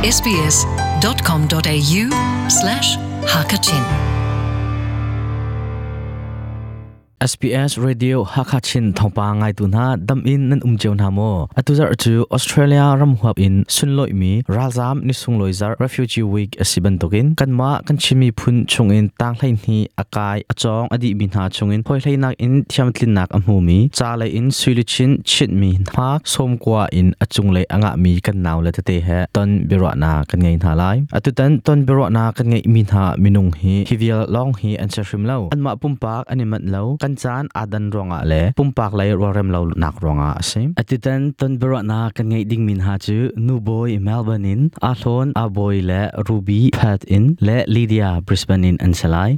sbs.com.au/hakachin SBS Radio Hakha Chin thawngpang ngaitu hna dam in nan um cio hna maw? Atu zarh cu Australia ram huap in sunlawih mi ralzam ni sunglawi zarh Refugee Week a si bantukin kanmah kan Chin miphun chungin tang hleihnih a kai a cawng a dihmi hna chungin hawihlei in thiamtlinnak a hmumi ca lei in suiluchin chinhmi hma sawmkua in a cunglei a ngahmi kan nau le tete he ton biaruahnak kan ngei hna lai. Atutan ton biaruahnak kan ngeihmi hna minung hi hi vial lawng hi an si hrim lo. Anmah pumpak an i manh lo, kan caan aa dan ruangah le pumpak lei rualrem lo nak ruangah a si. Atutan ton biaruahnak kan ngeih dingmi hna cu Nubawi Melbourne in Ahlawn Abawi le Ruby Perth in le Lydia Brisbane in an si lai.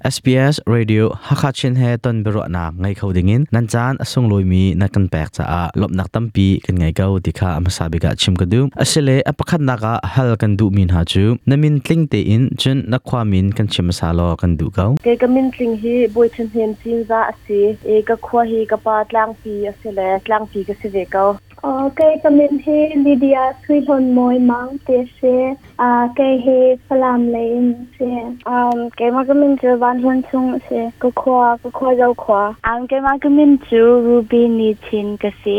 SBS Radio Hakha Chin he ton biaruahnak ngei kho dingin nan caan a sunglawimi na kan pek caah lawmhnak tampi kan ngei ko ti kha a hmasa bik ah chim ka duh. Asile a pakhatnak ah hal kan duhmi hna cu na min tling tein cun na khua min kan chim hmasa law kan duh ko. Kei ka min tling hi Bawi Than Hnem Cinzah a si i ka khua hi ka pa Tlangpi a si le Tlangpi ka si ve ko. Kei ka min hi Lydia Sui Hlawn Mawi Mang ti a si. Kei hi Falam lei in si. Keimah ka min cu Van Hlawn Sung a si. Ka khua, ka khua Zokhua. Keimah ka min cu Ruby Ni Chin ka si.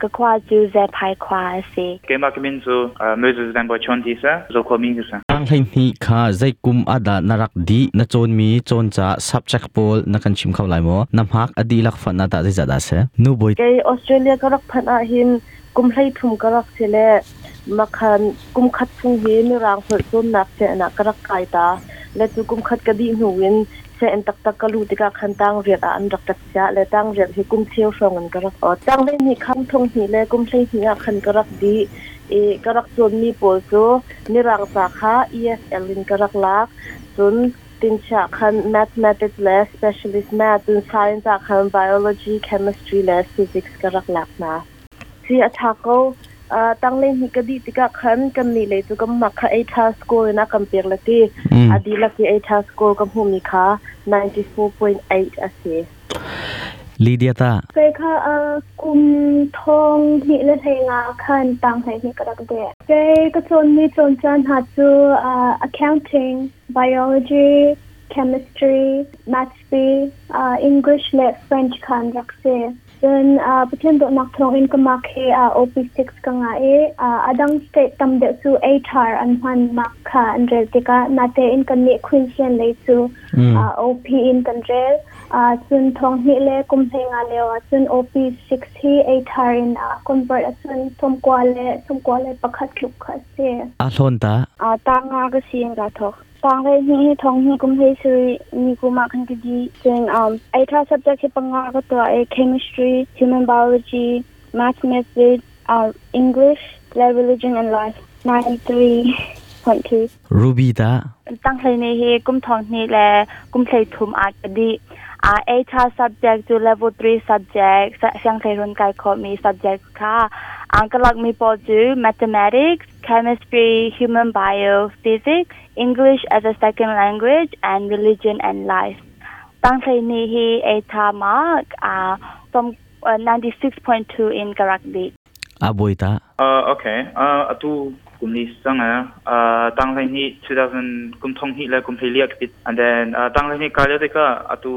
Ka khua cu Zephai khua a si. Keimah ka min cu Moses Van Bawi Chawn ti si. Zokhua mi ka si. Tang hleihnih kha zei kum ah dah na rak dih? Na cawnmi cawnca subject pawl na kan chim kho lai maw? Na hmak a dihlak fanh ah tah zeizah dah a si? Nu bawi Kei Australia ka rak phanh ahhin kum 13 ka rak si le makhan kum khat chung hi mirang holh cawnnak sianginn ah ka rak kai ta. Le cu kum khat ka dih hnu in sianginn taktak ka luh tikah khan tang riat ah an rak ka chiah le tang riat hi kum cheu hrawng in ka rak ot. Tang hleihnih kham thong hnih le kum 12 ah khan ka rak dih i ka rak cawnmi pawl cu mirang ca kha ESL in ka rak lak. Cun tinchiah khan mathematics le specialist math, cun science ah khan biology, chemistry le physics ka rak lak hna. Si a ṭha ko. Tanglei hnih ka dih tikah khan kannih lei cu kan mak kha ATAR score in a kan pek le ti. A dihlak i ATAR score ka hmuhmi kha 94.8 a si. Lydia ta. Kei kha kum thong hnih le hlei nga khan tang hlei hnih ka rak deh. Kei ka cawnmi cawn caan hna cu accounting, biology, chemistry, maths, English le French kha an rak si. Cun Pathian dawtnak thawngin ka mark hi OP6 ka ngah i a dang state tam deuh cu ATAR an hman mark kha an rel tikah natein kannih Queensland lei cu OP in kan rel. Cun thong hnih le kum 15 lio ah cun OP6 hi ATAR in convert ahcun 91.1 tluk kha a si. A hlawn ta? Ta nga ka si in ka thawk. Tang hlei hnih hi thong hnih kum hlei sarih ni kum ah khan ka dih. Cun ATAR subject hi panga ka tuah i chemistry, human biology, mathematics, English, le religion and life. 93.2. Ruby ta? Tang hlei ni hi kum thong hnih le kum hlei thum ah ka dih. ATAR subject cu level 3 subject, sianghleirun kai khawhmi subject kha ang ka lakmi pawl cu mathematics, chemistry, human bio, physics, English as a second language, and religion and life. Tang hleihnih hi ATAR mark from 96.2 in ka rak dih. A bawi ta. Okay. Atu kum ni sang tang hleihnih 2000 kum thong hnih le kum hleili ah ka And then tang hleihnih ka lio tikah atu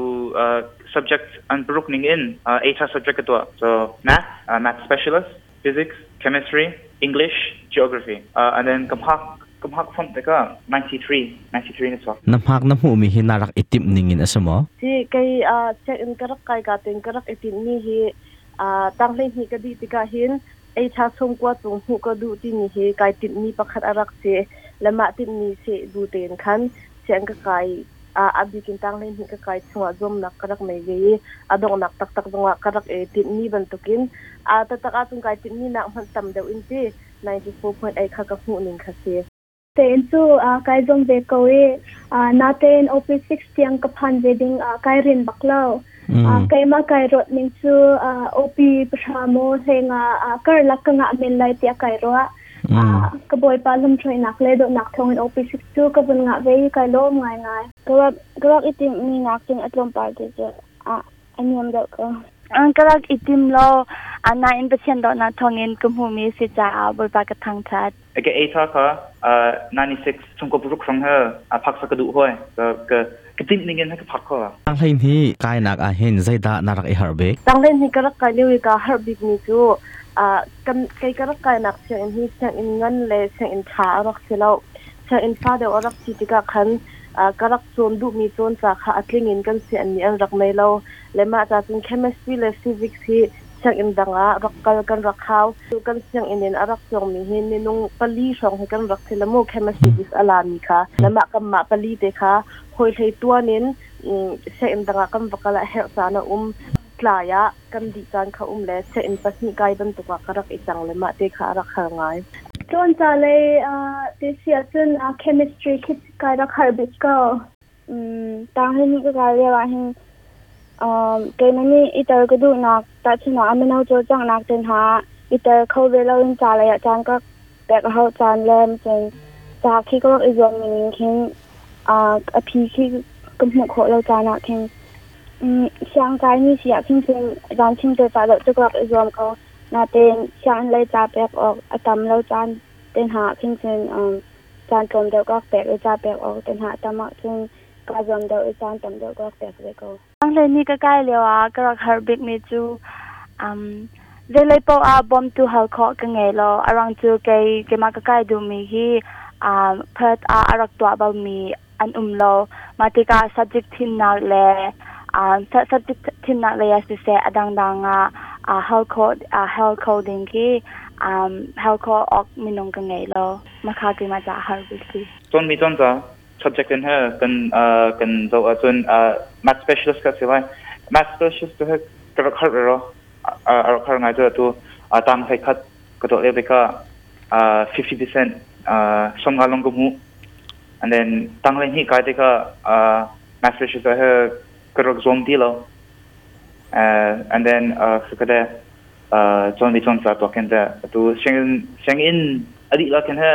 subject an paruk ning in ATAR subject ka tuah. So math, math specialist, physics, chemistry, English, geography. And then ka hmak ka hmak font tikah 93 93 na chuak. Na hmak na hmuhmi hi na rak i timh ning in a si maw? Si kei check in ka rak kai ka ten ka rak i timh mi hi tang hleihnih ka dih tikah hin ei tha sung kwa cung hmuh ka duh timi hi kai timh mi pakhat a rak si le mah timh mi si bu tein khan sian ka kai a bikin tang hleihnih ka kai chungah zuamnak ka rak nei ve i a donghnak taktak zongah ka rak i tinhmi bantukin a taktak ahcun kai tinhmi nak hmanh tam deuh in ti 94.8 kha ka hmuh ning kha si. Tein cu kai zuam ve ko i natein OP6 tiang ka phan ve ding kai rin bak lo. Keimah kai ruat ning cu OP pahra maw hlenga karlak ka ngah men lai tiah kai ruah. Ka bawipa lamhruainak le dawtnak thawngin OP6 cu ka vun ngah ve i kai lawm ngaingai. Ka rak i timhmi nakin a tlawmpal te cu a niam deuh ko. An ka rak i tim lo. Anain Pathian dawtnak thawngin ka hmuhmi si caah Bawipa ka thangṭhat. Ka ATAR kha 96 chung ko paruk hrang he a phak sa ka duh hoi ka ka ka timh ning in ka phak kho. Tang hleihnih kainak ah hin zeidah na rak i harh bik? Tang hleihnih ka rak kai lio i kaa harh bik mi cu kan kei ka rak kainak sianginn hi sianginn ngan le sianginn ṭha a rak si lo. Sianginn fa deuh a rak si tikah khan ka rak cawn duhmi cawn ca kha a tling in kan sianginn nih an rak nei lo. Le mah ca cun chemistry le physics hi sianginn dang ah rak kal kan rak hau. Kan sianginn in a rak cawngmi hi minung pali hrawng hi kan rak si le mu, chemistry physics a lami kha. Le mah kanmah pali te kha hawi hlei tuan in sianginn dang ah kan va kal ah herh caan a um. Tlai ah kan dih caan kha um le sianginn pahnih kai bantuk ah ka rak i cang le mah te kha a rak har ngai. Cawn ca lei ti si ahcun chemistry khi kai rak har bik ko. Tang hleihnih ka kai lio ah hin keimah nih i tel ka duhnak tahchunhnak ah mino cawlcanghnak te hna i tel kho ve loin ca lei ah caan ka pek a hauh caan le cun ca khi ka rak i zuam ning khin a phi khi ka hmuh khawh lo caan ah khin siangkai mi si ah khin cun zan chim te ca deuh cu ka rak i zuam ko. Natein sianginn lei ca pek awk a tam lo caan te hna ah khin cun caan tlawm deuh ka rak pek i ca pek awk te hna a tam ahcun kaa zuam deuh i caan tam deuh ka rak pek ve ko. Hleihnih ka kai lio ah ka rak harh bikmi cu zeilei paoh ah bawmtu hal khawh ka ngei lo. A ruang cu kei keimah ka kai duhmi hi Perth ah a rak tuah balmi an um lo. Mah tikah subject thimnak le subject thimnak lei ah siseh a dangdang ah hal khawh hal kho ding khi hal khawh awk minung ka ngei lo. Mah kha keimah caah har bik si. Cawnmi cawn ca subject in he kan kan zoh ahcun math specialist ka si lai. Math specialist cu he ka rak har ro a rak har ngai cu atu tang hlei khat ka tuah lio tikah 50% 50 long ka hmuh. And then tang hleihnih kai tikah math specialist he ka rak zuam ti lo. And then ka de cawn i cawn ca tuak khin te atu sianginn sianginn a dih la khin he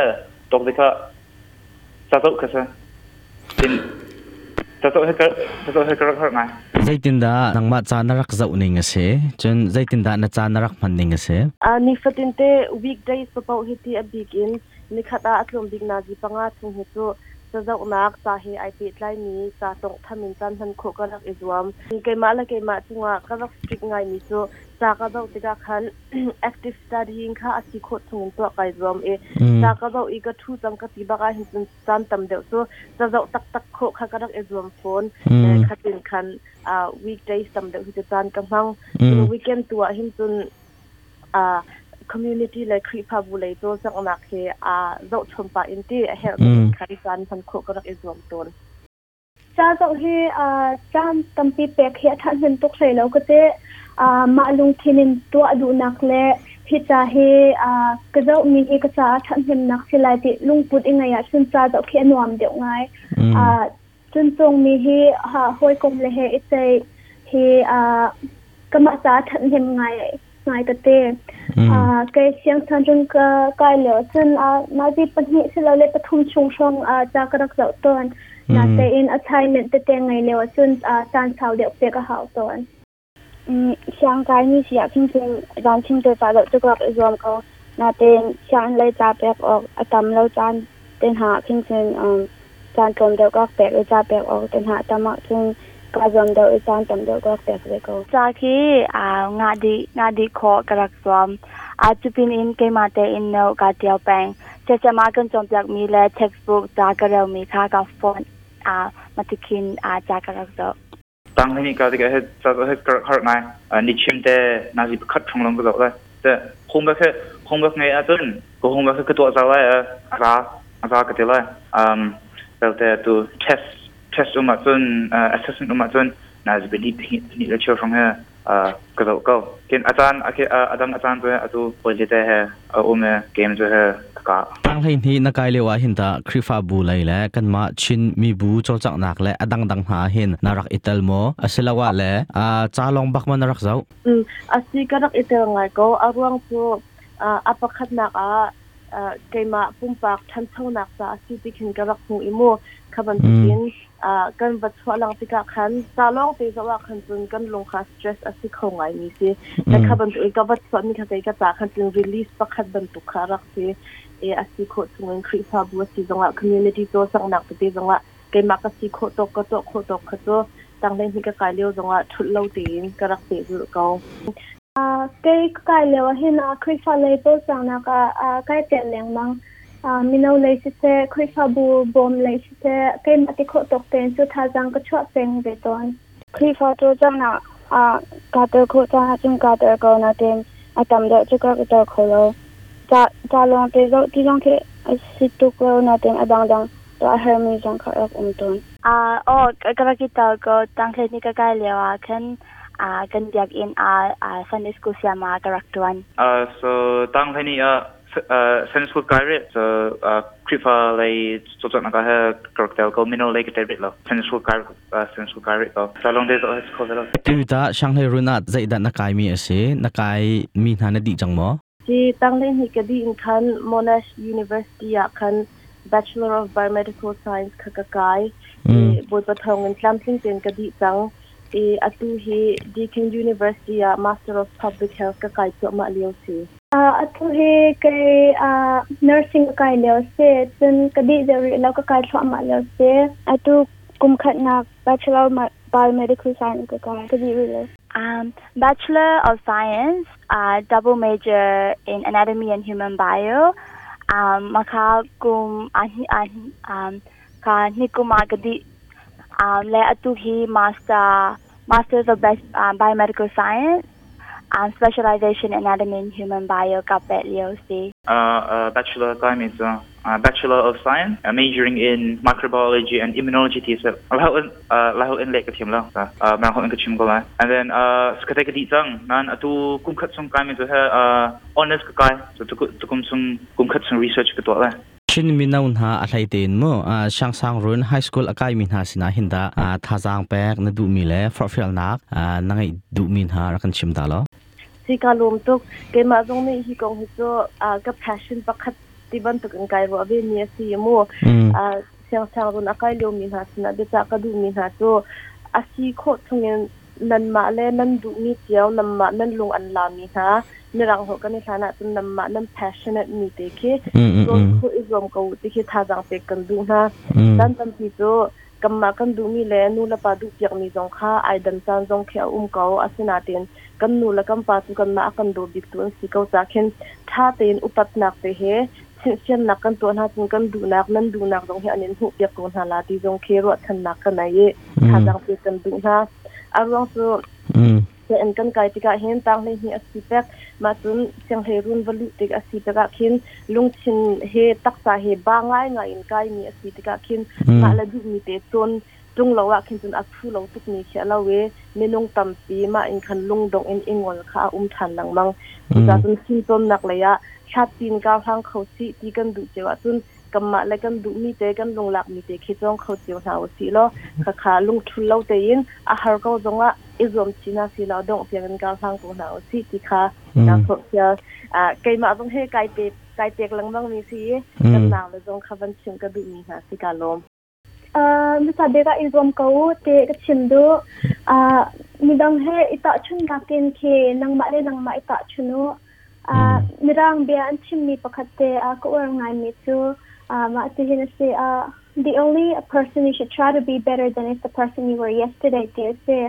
tuak tikah ca zoh kha si tin ca zoh he ca zoh he ka rak harh ngai. Zeitindah nangmah ca na rak zoh ning a si? Cun zeitindah na ca na rak hman ning a si? Nifatin te weekdays paoh hi ti a bik in nikhat ah a tlawm bik nazi 5 chung hi cu cazohnak ca he ai pehtlaimi ca tawnghtham in caan hman khawh ka rak i zuam. Keimah le keimah cungah ka rak strict ngaimi cu ca ka zoh tikah khan active studying kha a si khawh chungin tuah kai zuam i ca ka zoh i ka ṭhu cang ka ti bak ah hin cun caan tam deuh cu ca zoh taktak khawh kha ka rak i zuam fawn. Khatin khan weekdays tam deuh hi cu caan ka hmang. Weekend tu ah hin cun community le Khrihfabu lei cawlcanghnak he aa zohchom pah in ti a herh in khan caan hman khawh ka rak i zuam tawn. Ca zoh hi caan tampi pek hi a ṭhahnem tuk hlei lo ka ti. Mah lungthin in tuah duhnak le hi ca hi ka zohmi hi ka caah ṭhathnemnak si lai ti lungput i ngeih ahcun ca zoh khi a nuam deuh ngai. Cun cungmi hi hawikom le he i ceih hi kamah caah ṭhathnem ngai ngai ka ti. Kei siangsan cun ka kai lio cun nazi 2 silole 3 chung hrawng ca ka rak zoh tawn. Natein assignment tete ngei lio cun caan sau deuh pek a hau tawn. Siangkai mi si ah khin cun zan chim te ca deuh cu ka rak i zuam ko. Natein sianginn lei ca pek awk a tam lo caan te hna ah khin cun caan tlawm deuh ka rak pek i ca pek awk te hna a tam ahcun kaa zuam deuh i caan tam deuh ka rak pek ve ko. Ca khi ngah dih khawh ka rak zuam. Cu pin in keimah tein note kaa ṭial peng. Siasem ah kan cawnpiakmi le textbook ca ka relmi kha ka phone ah matikhin ca ka rak zoh. Tang hleihnih ka tikah he ca he ka rak harh ngai. Ni chim te nazi 1 hrawng lawng ka zoh lai. Te homework he homework ngei ahcun ka homework he ka tuah zau lai a za a za ka ti lai. Belte tu test um ahcun assessment um ahcun nazi 2 2 le cheu hrawng he ka zoh ko. Kin a caan a dang a caan cu atu pawile te he a um i game cu he ka kah. Tang 12 na kai lio ah hin ta Khrihfabu lei le kanmah Chin mibu cawlcanghnak le a dangdang hna hin na rak i tel maw? Asiloah le ca lawng bak ma na rak zoh? Asi, ka rak i tel ngai ko. A ruang cu a pakhatnak ah keimah pumpak ṭhanchonak ca a si ti khin ka rak hmu i mu kha bantukin. Kan va chuah lang tikah khan ca lawng te zoh ah khan cun kan lung kha stress a si kho ngai mi si. Na kha bantuk ka va chuah mi kha kei ka ca khan cun release pakhat bantuk kha rak si. E a si khawh chungin Khrihfabu a si zongah, community cawlcanghnak tete zongah keimah ka si khawh tawk, ka tuah khawh tawk kha cu tanglei hi ka kai lio zongah thulh lo tein ka rak pehzulh ko. Kei ka kai lio ah hin Khrihfa lei cawlcanghnak ah kai tel lengmang. Mino lei siseh, Khrihfabu bawm lei siseh, keimah ti khawh tawk tein cu thazaang ka chuah peng ve tawn. Khrihfa cawlcanghnak ah kaa tel khawh caan ahcun kaa tel ko, nain a tam deuh cu ka rak i tel kho lo. Ca lawng te zoh ti zong khi a si tuk lo, nain a dangdang tuah a herhmi zong kha a rak um tawn. Aw, ka rak i tel ko. Tanghleihnih ka kai lio ah khan kan biakinn ah Sunday school sayama ka rak ṭuan. So tanghleihnih ah Sunday school kai rih. So Khrihfa lei cawlcanghnak ah he ka rak tel ko. Mino lei ka tel rih lo. Sunday school kai Sunday school kai rih ko. Ca lawng te zoh kho ve lo. Tu ta Shanghai run ah zeidah na kai mi a si? Na kai mi hna na dih cang maw? Si tanghleihnih ka dih in khan Monash University ah khan Bachelor of Biomedical Science kha ka kai. Bawipa thawngin tlamtling tein ka dih cang. I atu hi Deakin University ah Master of Public Health ka kai cuahmah lio si. Atu hi kei nursing ka kai lio si. Cun ka dih deuh rih lo, ka kai thluahmah lio si. Atu kum khatnak Bachelor of Biomedical Science ka kai, ka dih rih lo. Bachelor of Science, double major in Anatomy and Human Bio. Maka kum ka ni kum ah ka dih. Le atu hi Masters of Biomedical Science, specialization Anatomy and Human Bio ka peh lio si. Bachelor kai mi cu Bachelor of Science, majoring in Microbiology and Immunology ti si. Lai holh in leh ka thiam lo. Mirang holh in ka chim ko lai. And then ka ka dih cang. Nan atu kum khat chung kai mi cu he honors ka kai. So tukum chung kum khat chung research ka tuah lai. Chin mino hna a hlei tein mu Siangsang Run High School a kaimi hna sinah hin dah thazaang pek na duhmi le forhfialnak na ngeih duhmi hna rak kan chim ta law. Si ka lawm tuk. Keimah zong nih hi kong hi cu ka passion pakhat ti bantuk in kai ruah ve mi a si mu. Siangsang Run a kai liomi hna sinah biacah ka duhmi hna cu a si khawh chungin nanmah le nan duhmi cio, nanmah nan lung an lami hna, mirang holh kan i hlan ahcun nanmah nan passionate mi te khi cawn khawh i zuam ko u ti khi thazaang pek kan duh hna. Caan tampi cu kanmah kan duhmi le nu le pa duhpiakmi zong kha ai dan caan zong khi a um ko. Asinain kan nu le kan pa cu kanmah a kan daw biktu an si ko caah khin ṭha tein upatnak te he chimhsiannak kan tuah hna cun kan duhnak, nan duhnak zong hi an in hmuhpiak ko hna la ti zong khi ruahchannak ka nei i thazaang pek kan duh hna. A ruang cu sianginn kan kai tikah hin tanghleihnih a si pek, mah cun sianghleirun va luh tik a si tikah khin lungthin he taksa he ba ngaingai in kaimi a si tikah khin mah le duhmi te cawn ṭung lo ah khin cun a phu lo tukmi khi a lo i minung tampi mah in khan lungdongh in i ngol kha a um ṭhan lengmang. Cucaah cun fimcawnnak lei ah hlatpi in kar hlang kho sih ti kan duh cio ahcun kanmah le kan duhmi te, kan lunglakmi te khi cawng kho cio hna usih law khakha lungṭhul lo tein a har ko zongah i zuam chih hna sih law dongh tiang in kar hlang ko hna usih ti kha kaa forhfial. Keimah zong he kai pe kai pek lengmang mi si i kan nau le zong kha van chimh ka duhmi hna si, kaa lawm. Hmasa bik ah i zuam ko u ti ka chim duh. Midang he i tahchunhnak in khi nangmah le nangmah i tahchun u. Mirang bia an chimmi pakhat te ka uar ngaimi cu mah tihin a si. The only person you should try to be better than is the person you were yesterday ti a si.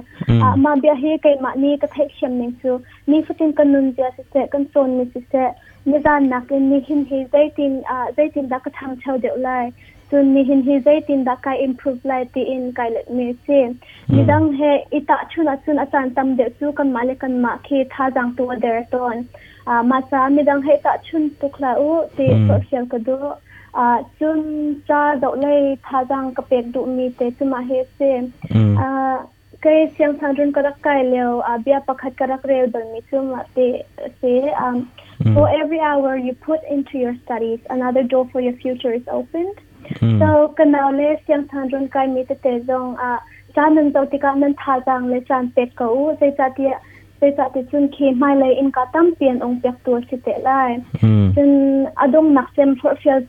Mah bia hi keimah nih ka theihthiam ning cu nifatin kan nunzia siseh, kan cawnmi siseh, nizan nakin nihin hi zeitin dah ka ṭhangcho deuh lai, cun nihin hi zeitindah kai improve lai tiin kai letmi a si. Midang he i tahchun ahcun a caan tam deuh cu kanmah le kanmah khi thazaang tu a der tawn. Mah caah midang he tahchun tuk hlah u ti forhfial ka duh. Cun ca zoh lei thazaang ka pek duhmi te cu mah hi a si. Kei siangsangrun ka rak kai lio bia pakhat ka rak rel balmi cu mah ti a si. For every hour you put into your studies, another door for your future is opened. So ka nau le siangsangrun kaimi tete zong caan nan zoh tikah nan thazaang le caan pek ko u. Zeicahtiah zeicahti cun khi hmailei innka tampi an ong piaktu a si te lai. Cun a donghnak cem forhfial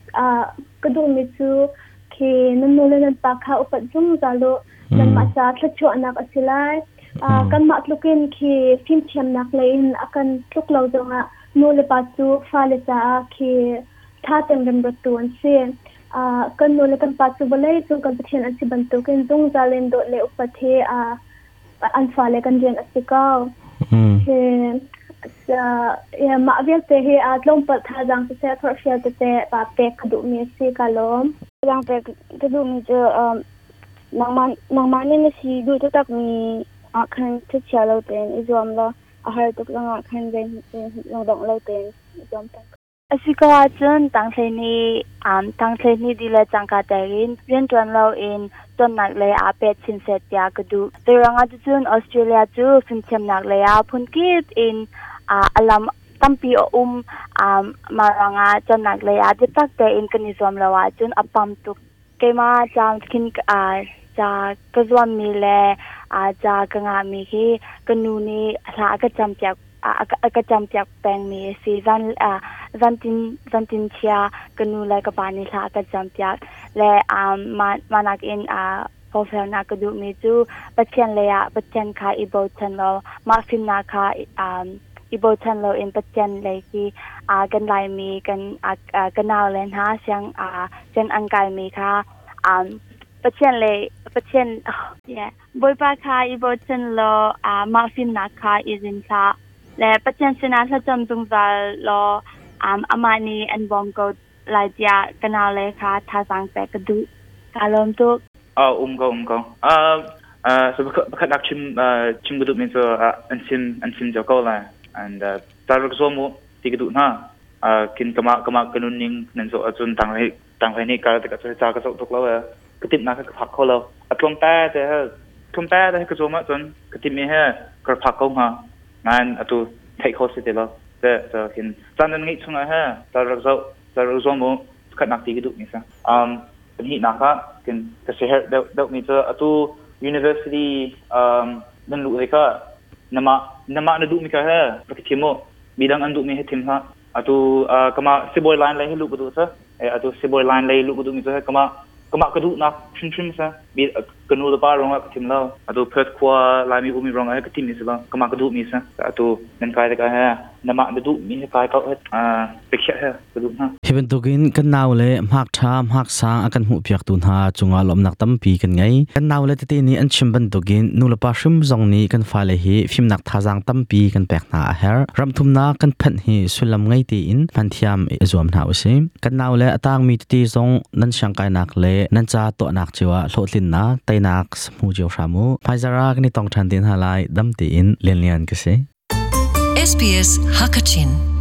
ka duhmi cu Khi nan nu le nan pa kha upat zungzal u. Nanmah ca thluachuahnak a si lai. Kanmah tlukin khi fimthiamnak lei in a kan tluk lo zongah nu le pa cu fale caah khi ṭha tein remruattu an si. Kan nu le kan pa cu vawlei cung kan Pathian an si bantukin zungzal in dawt le upat hi an fale kan rian a si ko. Mah vialte hi tlawmpal thazaang siseh forhfial tete pa pek ka duhmi a si ka lawm. Thazaang pek ka duhmi cu nangmah nangmah nih na si duh taktakmi ah khan thachia lo tein i zuam law a har tuk zongah khan zei lungdongh lo tein i zuam peng. A si ko ahcun tangthleihnih dih le cangka tein rianṭuan loin cawnnak lei ah pet chin seh tiah ka duh. Zeiruangah ticun Australia cu fimthiamnak lei ah phunkip in a lam tampi a um. Mah ruangah cawnnak lei ah biatak tein kan i zuam lo ahcun a pam tuk. Keimah ca khin ca ka zuammi le ca ka ngahmi hi ka nu nih hla a ka campiak a ka campiak pengmi a si. Zantin chia ka nu le ka pa nih hla a ka campiak le mah nakin forhfialnak ka duhmi cu Pathian lei ah Pathian kha i bochan law mah fimnak kha i bochan loin Pathian lei khi kan Laimi kan ka nau le hna siang siang an kaimi kha Pathian le Pathian yeah Bawipa kha i bochan law mah fimnak kha i zin hlah le Pathian sinah thlacam zungzal law amah nih an bawm ko lai tiah ka nau le kha thazaang pek ka duh. Ka lawm tuk. Um ko um ko. So pakhat nak chim chim ka duh mi cu an sim an sim cio ko lai and ta rak zuam u ti ka duh hna. Kin kama kama ka nun ning nan zo ahcun tang hlei tang hlei nih kal tikah cu ca ka zoh tuk lo e ka timh nak ka phak kho lo. A tlawm te te he tlawm te te ka zuam ahcun ka timh mi he ka phak ko hnga. Nain atu theih kho si ti lo. Te so hin caan nan ngeih chungah he ta rak zoh ta rak zuam u khat nak ti ka duh mi sa. Pahnihnak ah kin ka siaherh deuh deuhmi cu atu university nan luh tikah namah namah na duhmi kha he rak i thim u. Midang an duhmi he thim hlah. Atu kamah sibawi line lei he luh ka duh sa. Atu sibawi line lei luh ka duhmi cu he kamah kamah ka duhnak hrimhrim sa. Mi ka nu le pa ruangah ka thim lo. Atu Perth khua Laimi ummi ruangah he ka thimmi si lo. Kamah ka duhmi sa. Atu nan kai tikah he namah na duhmi he kai ko he biakhiah he ka duh hna. Hi bantukin kan nau le hmak ṭha hmak sang a kan hmuhpiaktu hna cungah lawmhnak tampi kan ngei. Kan nau le tete nih an chim bantukin nulepa hrim zong nih kan fale hi fimnak thazaang tampi kan pek hna a herh. Ramthumnak kan phanh hi sullam ngei tein hmanthiam i zuam hna usih. Kan nau le a tangmi tete zong nan siangkainak le nan ca tuahnak cio ah hlawhtlinnak, teinak hmu cio hram u. Hmaizarh ah kan i tong ṭhan te hna lai. Dam tein Lianlian ka si. SBS Hakachin.